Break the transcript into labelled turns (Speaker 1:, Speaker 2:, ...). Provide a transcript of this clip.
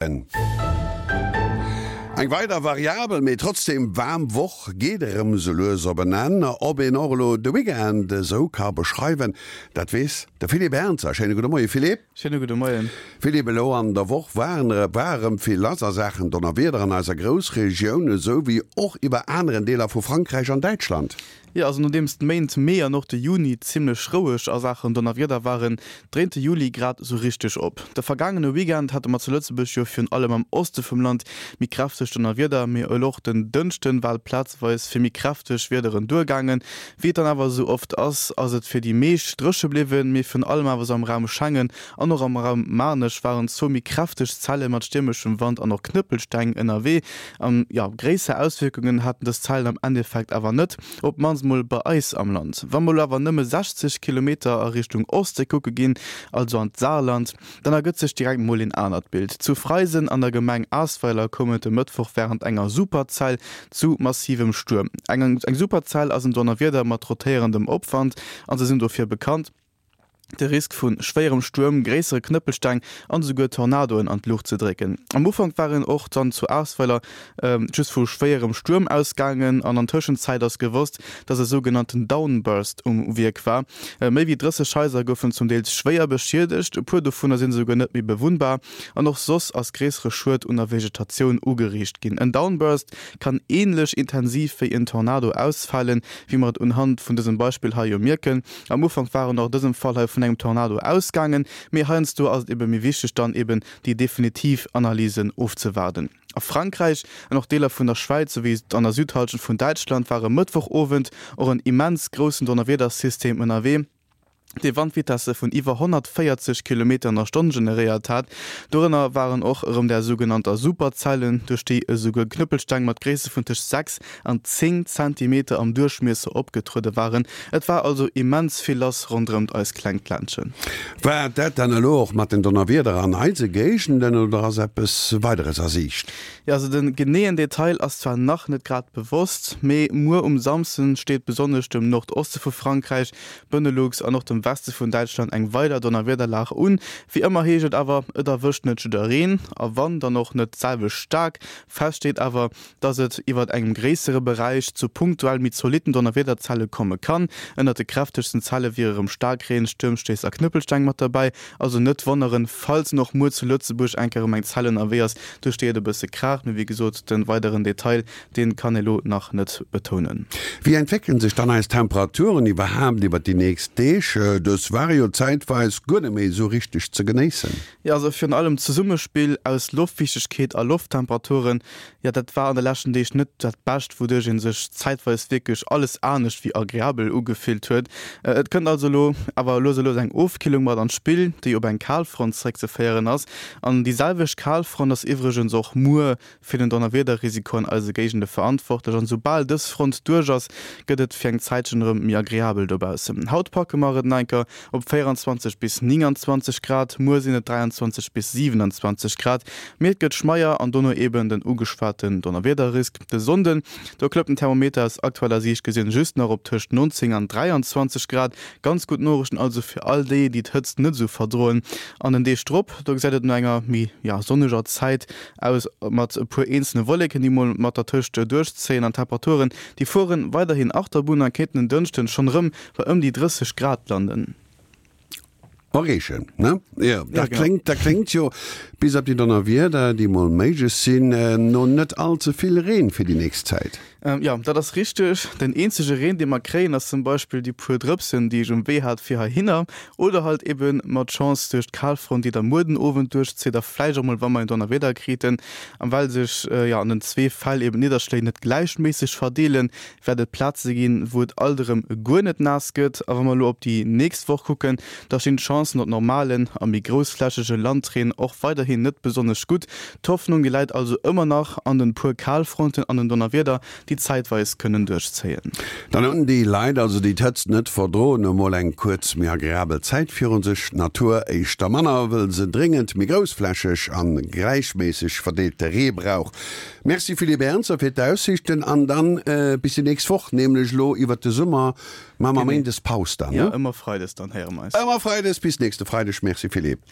Speaker 1: Eng weider variabel, mee trotzdeem waarm Woch geet erëm sou lues op en Enn. Ob een och elo de Weekend esou ka beschreiwen, dat weess de Philippe Ernzer. Schéine gudde Moie Philippe.
Speaker 2: Schéine gudde Moien.
Speaker 1: Philippe, elo an der Woch waren war erëm vill lass a Saachen Donnerwieder an eiser Groussregioun, esou wéi och iwwer aneren Deeler vu Frankräich an Däitschland.
Speaker 2: Jo, also nodeems d'Méint Mee an och de Juni zimmlech roueg a Saachen Donnerwieder waren, dréint de Juli grad esou richteg op. De vergaangene Weekend hate mer zu Lëtzebuerg jo virun allem am Oste vum Land méi kräfteg Donnerwieder, mee elo och den Dënschden war et plazeweis fir méi kräfteg Wiederen duergaangen. Wéi et dann awer esou oft ass, ass et fir déi meescht dréche bliwwen, mee virun allem awer esou am Raum Schengen an och am Raum Maarnech waren zwou méi kräfteg Zelle mat stiermeschem Wand an och Knëppelsteng ënnerwee. An jo, gréisser Auswierkungen haten dës Zellen am Endeffekt awer net, op d'mannst mol bei eis am Land. Wa mer elo awer nëmme 60 Kilometer a Richtung Oste kucke ginn, also an d'Saarland, dann ergëtt sech direkt mol een anert Bild. Zu Freisen an der Gemeng Asweiler koum et e Mëttwoch wärend enger Superzell zu massivem Stuerm. Eng Superzell ass en Donnerwieder mat rotéierendem Opwand a se sinn dofir bekannt, de Risk vu schwéierem Stuerm, gréissere Knëppelsteng an esouguer Tornadoen an d'Luucht ze drécken. Am Ufank war een och dann zu Aasweiler just vu schwéierem Stuerm ausgaangen an an Tëschenzäit ass gewosst, dass e sougenannten Downburst um Wierk war. Méi wéi 30 Haiser goufen zum Deels schwéier beschiedegt, e puer dovunner sinn esouguer net méi bewunnbar an och soss ass gréissere Schued un der Vegetatioun ugeriicht ginn. En Downburst kann änlech intensiv wéi en Tornado ausfalen, wéi mer et unhand vun dësem Beispill hei jo mierken. Am Ufank war en och dësem Fall hei vun engem Tornado ausgaangen, mee heiansdo ass et ebe méi wichteg dann eben déi definitiv Analysen ofzewaarden. A Frankräich an och Deeler vun der Schwäiz souwéi an der Südhallschent vun Däitschland war e Mëttwochowend och en immens groussen Donnerwiedersystem ënnerwee, dee Wandvitesse vun iwwer 140 Kilometer an der Stonn generéiert hat. Dorënner waren och erëm där sougenannter Superzellen, duerch déi esouguer Knëppelsteng mat Gréisste vun tëscht 6 an 10 Zentimeter am Duerchmiesser opgetruede waren. Et war also immens vill lass ronderëmt eist klengt Ländchen.
Speaker 1: War dat dann elo och mat den Donnerwieder an eise Géigenden oder ass eppes Weideres a Siicht?
Speaker 2: Jo, also de geneeën Detail ass zwar nach net grad bewosst, mee muer um Samsden steet besonnesch dem Nordoste vu Frankräich, Benelux an och dem Weste vun Däitschland eng weider Donnerwiederlag un. Wéi ëmmer heescht et awer, et erwëscht net jiddereen a wann, dann och net d'selwecht staark. Fest steet awer, dass et iwwert engem gréissere Beräich zu punktuell méi zolitten Donnerwiederzelle komme kann. Ënnert de kräftegsten Zelle wiere rem Staarkreen, Stuermstéiss a Knëppelsteng mat derbäi. Also net wonneren, falls en och muer zu Lëtzebuerg eng Kéier erëm eng Zell ënnerwee ass, duerch déi et e bësse kraacht. Mee wéi gesot, de weideren Detail, dee kann ee lo nach net betounen.
Speaker 1: Wéi entwéckele sech dann eis Temperaturen iwwerhaapt iwwert déi nächst Deeg? Dës ware jo zäitweis guer net méi esou richteg ze genéissen.
Speaker 2: Jo, also virun allem d'Zesummespill aus Loftfiichtegkeet a Lofttemperaturen, jo dat war an de leschten Deeg net dat Bescht, wouduerch ee sech zäitweis wierklech alles anescht wéi agreabel ugefillt huet. Et kënnt also elo awer lues a lues eng Ofkillung mat an d'Spill, déi op eng Kalfront zeréckzeféieren ass. An déi selwecht Kalfront ass iwwregens och muer fir den Donnerwiederrisiko an eise Géigende verantwortlech. An soubal dës Front duerch ass, gëtt et fir eng Zäitchen erëm méi agreabel dobaussen. Haut packe mer et nach enker op 24 bis 29 Grad, muer sinn et 23 bis 27 Grad, mee et gëtt schmeier an dono eben den ugeschwaten Donnerwiederrisk. De Sonnden, do klëmmt den Thermometer aus aktueller Siicht gesinn just nach op tëscht 19 an 23 Grad. Ganz gutt Noriichten also fir all déi, déi d'Hëtzt net esou verdroen. An den Deeg drop, do gesäit et no enger méi, ja, sonneger Zäit aus, mat e puer eenzele Wolleken, déi mol mat dertëscht duerchzéien an Temperaturen, déi fueren weiderhin Achterbunn a kéinten en Dënschden schonn erëm bei ëm déi 30 Grad landen.
Speaker 1: Erreechen, ne? Jo, dat kléngt, dat kléngt jo, bis op déi Donnerwieder, déi mol méiglech sinn, no net all ze vill Reen fir déi nächst Zäit.
Speaker 2: Jo, dat ass richteg. Den eenzege Reen, dee mer kréien, ass zum Beispill déi puer Drëpsen, déi ech um Wee hat fir heihinner, oder halt ebe mat Chance duerch d'Kalfront, déi da muer den Owend duerchzitt a vläicht och mol, wa mer en Donnerwieder kriten. A well sech, jo, an den zwee Fäll eben d'Nidderschléi net gläichméisseg verdeelen, wäert et Plaze ginn, wou et alt erëm guer net naass gëtt. A wa mer elo op déi nächst Woch kucken, da stinn d'Chancen op normalen a méi groussflächege Landreen och weiderhin net besonnesch gutt. D'Hoffnung, déi läit also ëmmer nach an den puer Kalfronten an den Donnerwieder, déi zäitweis kënnen duerchzéien.
Speaker 1: Dann hunn déi Leit also, déi d'Hëtzt net verdroen, emol eng kuerz méi agreabel Zäit virun sech. D'Natur éischter manner, wëll se dréngend méi groussflächeg an gläichméisseg verdeelte Ree brauch. Merci Philippe Ernzer fir d'Aussiichten an dann bis déi nächst Woch, nämlech elo iwwert de Summer maache mer Méindes Paus dann,
Speaker 2: ne? Jo, ëmmer Freides dann héiere mer eis.
Speaker 1: Ëmmer Freides, bis nächste Freideg. Merci Philippe.